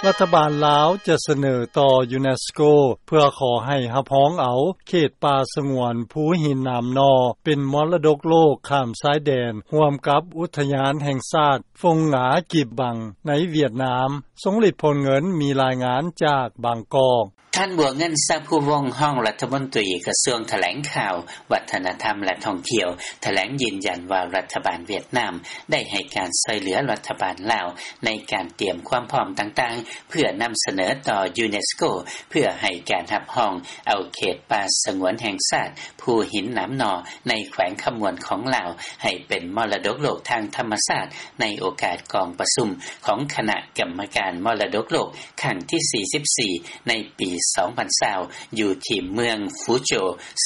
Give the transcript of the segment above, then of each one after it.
ລັດຖະບານລາວຈະສະເໜີຕໍ່ຢູເນສໂກ ເພື່ອຂໍໃຫ້ຮັບຮອງເອົາເຂດປ່າສະຫງວນພູຫີນໜາມໜໍ່ ເປັນມໍລະດົກໂລກຂ້າມຊາຍແດນ ຮ່ວມກັບອຸທະຍານແຫ່ງຊາດຟົງງາກີບບັງ ໃນຫວຽດນາມ. ຊົງລິດ ພົນເງິນ ມີລາຍງານຈາກບາງກອກ. ທ່ານ ບົວເງິນ ຊາພູວົງ ຮອງລັດຖະມົນຕີກະຊວງຖະແຫຼງຂ່າວ, ວັດທະນະທຳ ແລະ ທ່ອງທ່ຽວ ຖະແຫຼງຢືນຢັນວ່າ ລັດຖະບານຫວຽດນາມໄດ້ໃຫ້ການຊ່ອຍເຫຼືອລັດຖະບານລາວ ໃນການຕຽມຄວາມພ້ອມຕ່າງໆ ເພື່ອນຳສະເໜີຕໍ່ຢູເນສໂກ ເພື່ອໃຫ້ການຮັບຮອງເອົາເຂດປ່າສະຫງວນແຫ່ງຊາດ ພູຫີນໜາມໜໍ່ ໃນແຂວງຄຳມ່ວນຂອງລາວ ໃຫ້ເປັນມໍລະດົກໂລກທາງທຳມະຊາດ ໃນໂອກາດກອງປະຊຸມຂອງຄະນະກຳມະການມໍລະດົກໂລກ ຄັ້ງທີສີ່ສິບສີ່ ໃນປີສອງພັນຊາວ ຢູ່ທີ່ເມືອງຟູໂຈ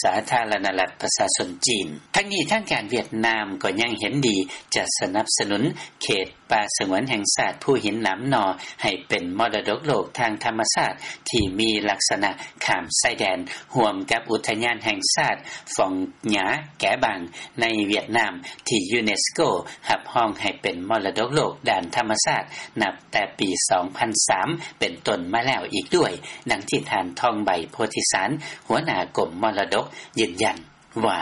ສາທາລະນະລັດປະຊາຊົນຈີນ. ທັງນີ້ ທາງການຫວຽດນາມກໍຍັງເຫັນດີຈະສະໜັບສະໜູນເຂດປ່າສະຫງວນແຫ່ງຊາດພູຫີນໜາມໜໍ່ ໃຫ້ເປັນມໍລະດົກໂລກທາງທຳມະຊາດ ທີ່ມີລັກສະນະຂ້າມຊາຍແດນ ຮ່ວມກັບອຸທະຍານແຫ່ງຊາດຟອງຫຍາແກບັງ ໃນຫວຽດນາມ ທີ່ຢູເນສໂກຮັບຮອງໃຫ້ເປັນມໍລະດົກໂລກດ້ານທຳມະຊາດ ນັບແຕ່ປີສອງພັນສາມ ເປັນຕົ້ນມາແລ້ວອີກດ້ວຍ, ດັ່ງທີ່ທ່ານ ທອງໃບ ໂພທິສານ ຫົວໜ້າກົມມໍລະດົກ ຢືນຢັນວ່າ: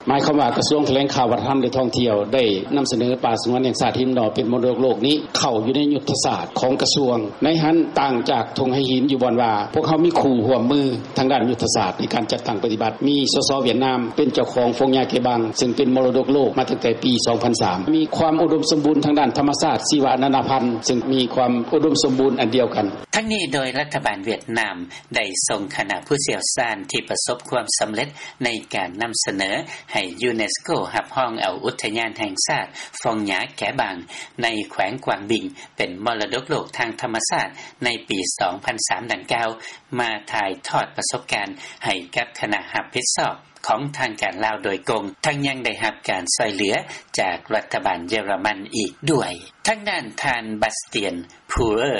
ໝາຍຄວາມວ່າ ກະຊວງຖະແຫຼງຂ່າວ ວັດທະນະທຳ ແລະ ທ່ອງທ່ຽວ ໄດ້ນຳສະເໜີປ່າສະຫງວນແຫ່ງຊາດຫີນໜໍ່ ເປັນມໍລະດົກໂລກນີ້ ເຂົ້າຢູ່ໃນຍຸດທະສາດຂອງກະຊວງ. ໃນຫັ້ນ ຕ່າງຈາກທົ່ງໄຫຫີນ ຢູ່ບ່ອນວ່າ ພວກເຮົາມີຄູ່ຮ່ວມມື ທາງດ້ານຍຸດທະສາດໃນການຈັດຕັ້ງປະຕິບັດ ມີ ສສ ຫວຽດນາມ ເປັນເຈົ້າຂອງຟອງຫຍ້າເກບັງ ຊຶ່ງເປັນມໍລະດົກໂລກມາຕັ້ງແຕ່ປີສອງພັນສາມ ມີຄວາມອຸດົມສົມບູນທາງດ້ານທຳມະຊາດ ຊີວະນານາພັນ ຊຶ່ງມີຄວາມອຸດົມສົມບູນອັນດຽວກັນ. ທັງນີ້ ໂດຍລັດຖະບານຫວຽດນາມໄດ້ສົ່ງຄະນະຜູ້ຊ່ຽວຊານທີ່ປະສົບຄວາມສຳເລັດໃນການນຳສະເໜີໃຫ້ຢູເນສໂກຮັບຮອງເອົາອຸທະຍານແຫ່ງຊາດຟອງຫຍ້າແກບັງ ໃນແຂວງກວາງບິງ ເປັນມໍລະດົກໂລກທາງທຳມະຊາດໃນປີສອງພັນສາມ ດັ່ງກ່າວ ມາຖ່າຍທອດປະສົບການໃຫ້ກັບຄະນະຮັບຜິດຊອບຂອງທາງການລາວໂດຍກົງ, ທັງຍັງໄດ້ຮັບການຊ່ອຍເຫຼືອຈາກລັດຖະບານເຢຍລະມັນອີກດ້ວຍ. ທາງດ້ານທ່ານ ບາສຕຽນ ພູເຣີ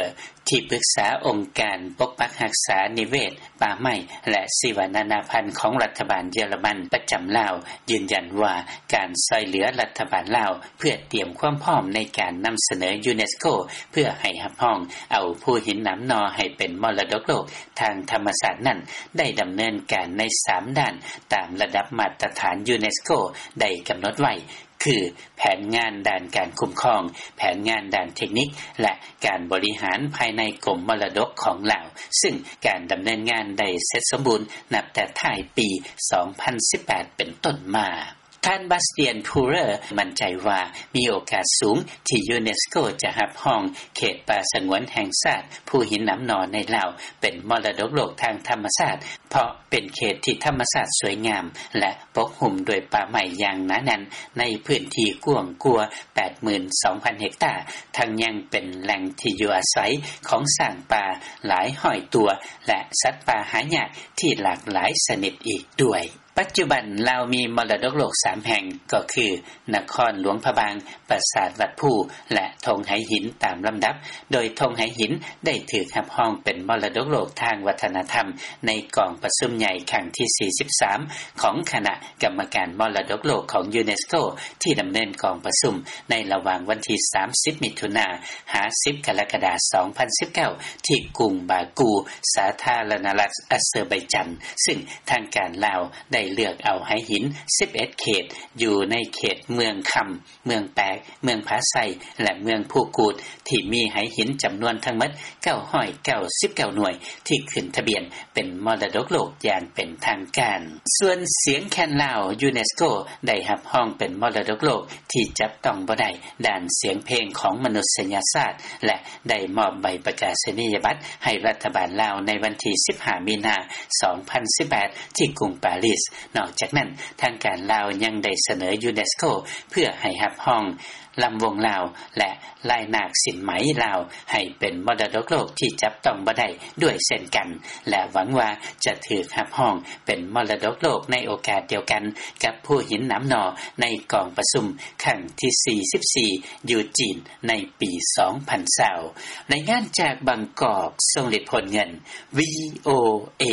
ທີ່ປຶກສາອົງການປົກປັກຮັກສານິເວດ, ປ່າໄມ້ ແລະ ຊີວະນານາພັນຂອງລັດຖະບານເຢຍລະມັນປະຈຳລາວ ຢືນຢັນວ່າ ການຊ່ອຍເຫຼືອລັດຖະບານລາວ ເພື່ອຕຽມຄວາມພ້ອມໃນການນຳສະເໜີຢູເນສໂກ ເພື່ອໃຫ້ຮັບຮອງເອົາພູຫີນໜາມໜໍ່ໃຫ້ເປັນມໍລະດົກໂລກທາງທຳມະຊາດນັ້ນ ໄດ້ດຳເນີນການໃນສາມດ້ານ ຕາມລະດັບມາດຕະຖານຢູເນສໂກໄດ້ກຳນົດໄວ້ ຄື ແຜນງານດ້ານການຄຸ້ມຄອງ, ແຜນງານດ້ານເທັກນິກ ແລະ ການບໍລິຫານພາຍໃນກົມມໍລະດົກຂອງລາວ, ຊຶ່ງການດຳເນີນງານໄດ້ເສັດສົມບູນນັບແຕ່ທ້າຍປີສອງພັນສິບແປດເປັນຕົ້ນມາ. ທ່ານ ບາສຕຽນ ພູເຣີ ໝັ້ນໃຈວ່າ ມີໂອກາດສູງທີ່ຢູເນສໂກຈະຮັບຮອງເຂດປ່າສະຫງວນແຫ່ງຊາດພູຫີນໜາມໜໍ່ໃນລາວ ເປັນມໍລະດົກໂລກທາງທຳມະຊາດ ເພາະເປັນເຂດທີ່ທຳມະຊາດສວຍງາມ ແລະ ປົກຫຸ້ມດ້ວຍປ່າໄມ້ຢ່າງໜາແໜ້ນ ໃນພື້ນທີ່ກວ້າງກວ່າ ແປດໝື່ນສອງພັນ ເຮັກຕາ, ທັງຍັງເປັນແຫຼ່ງທີ່ຢູ່ອາໄສຂອງຊ້າງປ່າຫຼາຍຮ້ອຍຕົວ ແລະ ສັດປ່າຫາຍາກທີ່ຫຼາກຫຼາຍຊະນິດອີກດ້ວຍ. ປັດຈຸບັນລາວມີມໍລະດົກໂລກສາມແຫ່ງ ກໍຄື ນະຄອນຫຼວງພະບາງ, ປາສາດວັດພູ ແລະ ທົ່ງໄຫຫີນຕາມລຳດັບ, ໂດຍທົ່ງໄຫຫີນໄດ້ຖືກຮັບຮອງເປັນມໍລະດົກໂລກທາງວັດທະນະທຳ ໃນກອງປະຊຸມໃຫຍ່ຄັ້ງທີສີ່ສິບສາມ ຂອງຄະນະກຳມະການມໍລະດົກໂລກຂອງຢູເນສໂກ ທີ່ດຳເນີນກອງປະຊຸມໃນລະຫວ່າງວັນທີສາມສິບ ມິຖຸນາ ຫາ ສິບ ກໍລະກະດາ ສອງພັນສິບເກົ້າ ທີ່ກຸງບາກູ ສາທາລະນະລັດອາເຊີໄບຈານ, ຊຶ່ງທາງການລາວໄດ້ເລືອກເອົາໄຫຫີນສິບເອັດເຂດ ຢູ່ໃນເຂດເມືອງຄຳ, ເມືອງແປກ, ເມືອງຜາໄຊ ແລະ ເມືອງພູກູດ ທີ່ມີໄຫຫີນຈຳນວນທັງໝົດເກົ້າຮ້ອຍເກົ້າສິບເກົ້າໜ່ວຍ ທີ່ຂຶ້ນທະບຽນເປັນມໍລະດົກໂລກຢ່າງເປັນທາງການ. ສ່ວນສຽງແຄນລາວ ຢູເນສໂກໄດ້ຮັບຮອງເປັນມໍລະດົກໂລກທີ່ຈັບຕ້ອງບໍ່ໄດ້ດ້ານສຽງເພງຂອງມະນຸດສະຍະຊາດ ແລະ ໄດ້ມອບໃບປະກາສະນີຍະບັດໃຫ້ລັດຖະບານລາວໃນວັນທີສິບຫ້າ ມີນາ ສອງພັນສິບແປດ ທີ່ກຸງປາຣີສ. ນອກຈາກນັ້ນ, ທາງການລາວຍັງໄດ້ສະເໜີຢູເນສໂກເພື່ອໃຫ້ຮັບຮອງລຳວົງລາວ ແລະ ລາຍນາກສິນໄໝລາວ ໃຫ້ເປັນມໍລະດົກໂລກທີ່ຈັບຕ້ອງບໍ່ໄດ້ດ້ວຍເຊັ່ນກັນ ແລະ ຫວັງວ່າຈະຖືກຮັບຮອງເປັນມໍລະດົກໂລກໃນໂອກາດດຽວກັນກັບພູຫີນໜາມໜໍ່ ໃນກອງປະຊຸມຄັ້ງທີສີ່ສິບສີ່ ຢູ່ຈີນໃນປີສອງພັນຊາວ. ລາຍງານຈາກບາງກອກ, ຊົງລິດ ໂພນເງິນ, ວີໂອເອ.